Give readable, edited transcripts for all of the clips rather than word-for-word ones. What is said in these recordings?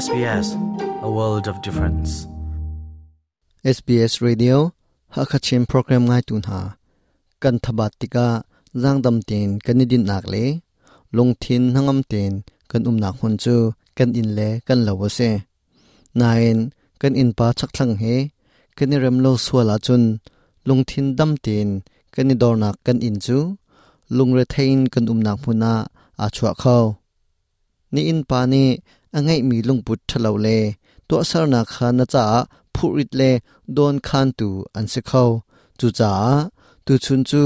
SBS, a world of difference. SBS Radio Hakachin program ngai tu hna kan thabat tikah zangdam tein kan i dinhnak le lungthin hnangam tein kan umnak hmun cu kan inn le kan lo a si. Nain kan innpa chakthlang he kan i rem lo sual ahcun lungthin dam tein kan i dornak kan inn cu lungrethei in kan umnak hmun ah aa chuah kho. Na innpa nih a ngeihmi lungput ṭhalo le tuahsernak kha na caah phurrit le dawnkhantu an si kho. Cucaah tuchun cu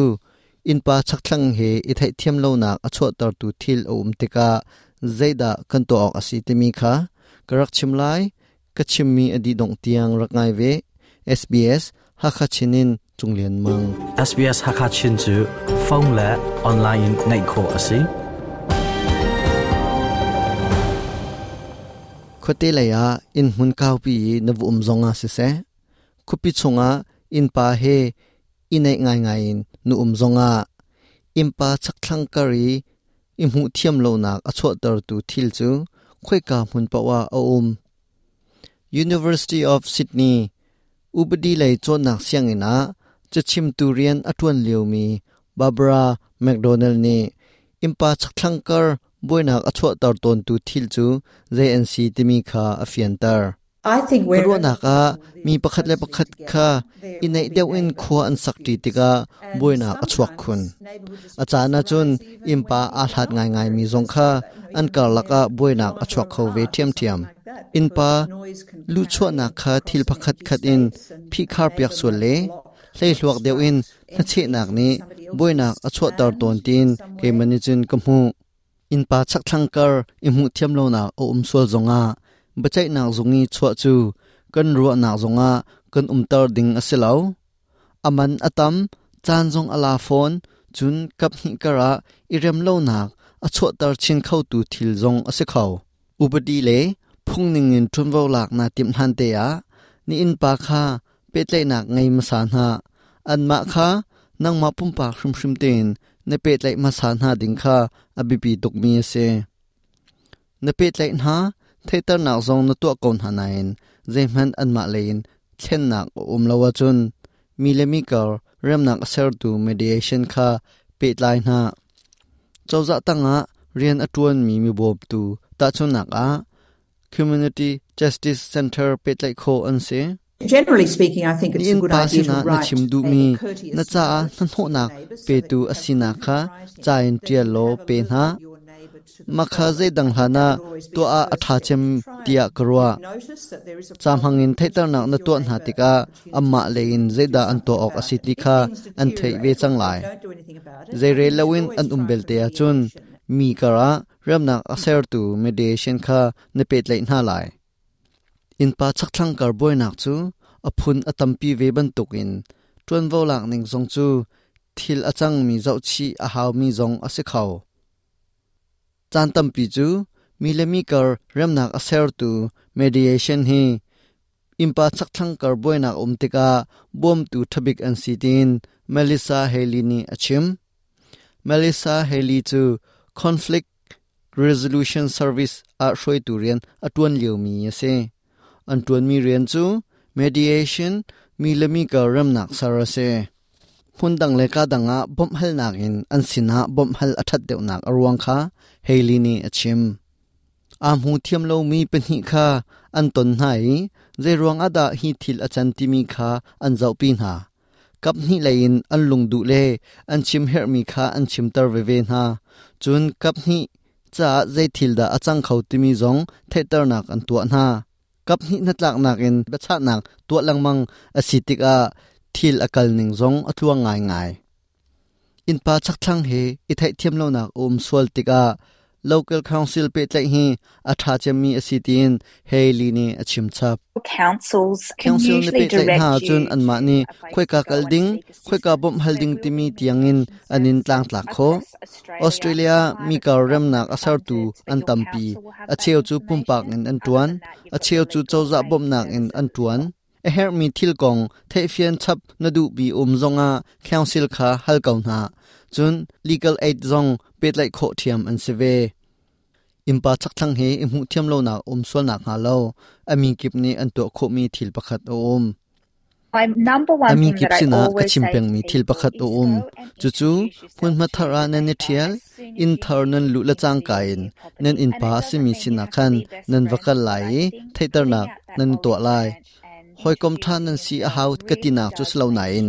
innpa chakthlang he i theihthiam lonak a chuahtertu thil a um tikah zeidah kan tuah awk a si timi kha ka rak chim lai. Ka chimmi a dih dongh tiang rak ngai ve. SBS Hakha Chin in Cung Lian Mang. SBS Hakha Chin cu phone le online in ngaih khawh a si. Khuate lei ah inn hmun kaupi i na va um zong ah siseh, khuapi chungah innpa he i naih ngaingai in na um zongah innpa chakthlang kar i i hmuh thiam lonak a chuahtertu thil cu khoika hmun paoh ah a um. University of Sydney upadi lei cawnnak sianginn ah cachimtu rian a ṭuan liomi Barbara McDonald nih innpa chakthlang kar buainak a chuahter tawntu thil cu zei an si timi kha a fianter. Ka ruahnak ah mi pakhat le pakhat kha i naih deuh in khua an sakṭi tikah buainak a chuak khun. A caan ahcun innpa aa hlat ngaingaimi zong kha an karlak ah buainak a chuak kho ve ṭhiamṭhiam. Innpa luhchuahnak kha thil pakhat khat in phihkharpiak sual le hleihluak deuh in hnachehnak nih buainak a chuahter tawn tiin keimah nih cun ka hmuh. Innpa chakthlang kar i hmuhthiam lonak a um sual zongah biaceihnak zung i chuah cu kan ruahnak zongah kan umter ding a si lo. A man a tam, caan zong a la fawn, cun kaphnih karah i rem lonak a chuahter chin khotu thil zong a si kho. Upadi le phung ningin ṭuanvo lak naa timh hlan te ah na innpa kha pehtlaihnak ngei hmasa hna. Anmah kha nangmah pumpak hrimhrim tein na pehtlaih hmasa hna ding kha a biapi tukmi a si. Na pehtlaih hna, theihternak zong na tuah ko hna nain zeihmanh anmah lei in thlennak a um lo ahcun mi le mi kar remnak a sertu mediation kha pehtlai hna. Cozah tangah rian a ṭuanmi mibawmtu tahchunhnak ah Community Justice Center pehtlaih khawh an si. Generally speaking, I think it's a good Na innpa idea to sinah na write chim a duhmi courteous na caah note to your hnahnawhnak neighbour so that petu you a have sinak it in kha writing. ca in Then ṭial you law have pe hna. alerted your neighbour to the Mah kha problem. zeidang hlan That ah would always be tuah the ah a first ṭha step cem to try tiah and ka ruah. notice that there is a Ca problem hmangin and to theihternak give na your tuah hna neighbour an tikah opportunity anmah lei in to do zeidah an something tuah awk a about si it. ti If kha things an theih ve deteriorate cang or they lai. don't do anything about it, I Zeirel think you should loin always an um try for belte ahcun mediation. mi karah remnak a sertu mediation kha na pehtlaih hna lai. Innpa chakthlang kar buainak cu a phun a tampi ve bantukin ṭuanvo lak ning zong cu thil a cangmi zohchih a haumi zong a si kho. Caan tampi cu mi le mi kar remnak a sertu mediation hi innpa chakthlang kar buainak a um tikah bawmtu ṭhabik an si tiin Melissa Haley nih a chim. Melissa Haley cu Conflict Resolution Service ah hruaitu rian a ṭuan liomi a si. An ṭuanmi rian cu mediation, mi le mi kar remnak ser a si. Hmundang le ka dang ah bawmhhalnak in an sinah bawmhhal a ṭhat deuhnak a ruang kha Haley nih a chim. Aa hmu thiam lomi pahnih kha an ton hna i zeiruang ah dah hi thil a can timi kha an zohpi hna. Kaphnih lei in an lungduh le an chim herhmi kha an chimter veve hna. Cun kaphnih caah zei thil dah a cang kho timi zong theihternak an tuah hna. Kaphnih hnatlaknak in biachahnak tuah lengmang a si tikah thil a kal ning zong a tluang ngaingai. Innpa chakthlang he i theihthiam lonak a um sual tikah local council pehtlaih hi a ṭha cemmi a si tiin Haley nih a chim chap. Councils can Council na usually pehtlaih direct hna you ahcun anmah to nih a place khoika to go kal and ding, seek khoika assistance. bawmh hal There ding will timi be tiangin mediation an in services tlangtlak khawh. across Australia, Australia mi private kar and remnak government a sertu funded, but an your tampi. council will have A that cheu cu pumpak information. in an Other ṭuan, than that, you've a got cheu the cu legal cozah aid bawmhnak in services an as ṭuan. well. A herhmi thil kong theihfian chap na duhmi um zongah council kha hal ko hna. Cun legal aid zong pehtlaih khawh ṭhiam an si ve. Innpa chakthlang he i hmuhthiam lonak um sual nakhnga lo a mi kip nih an tuah khawhmi thil pakhat a um. A mi kip sinah ka chim pengmi thil pakhat a um. Cucu hmunhma thar ah nan i ṭhial, inn thar nan luh le cangka in nan innpa a simi sinah khan nan va kal lai i theihternak nan tuah lai. Hawikom ṭha nan si a hau ka tinak cu si lo nain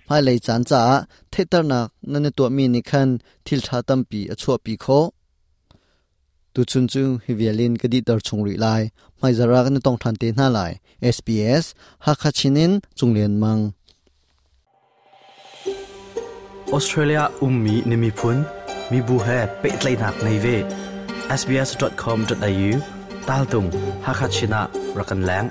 hmailei caan caah theihternak nan i tuahmi nih khan thil ṭha tampi a chuahpi khawh. Tuchun cu hi vial in ka dihter chung rih lai. Hmaizarh ah kan i tong ṭhan te hna lai. SBS Hakha Chin in Cung Lian Mang. Australia ummi na miphun, mibu he pehtlaihnak ngei ve. sbs.com.au tal tung Hakha Chin ah rak kan leng.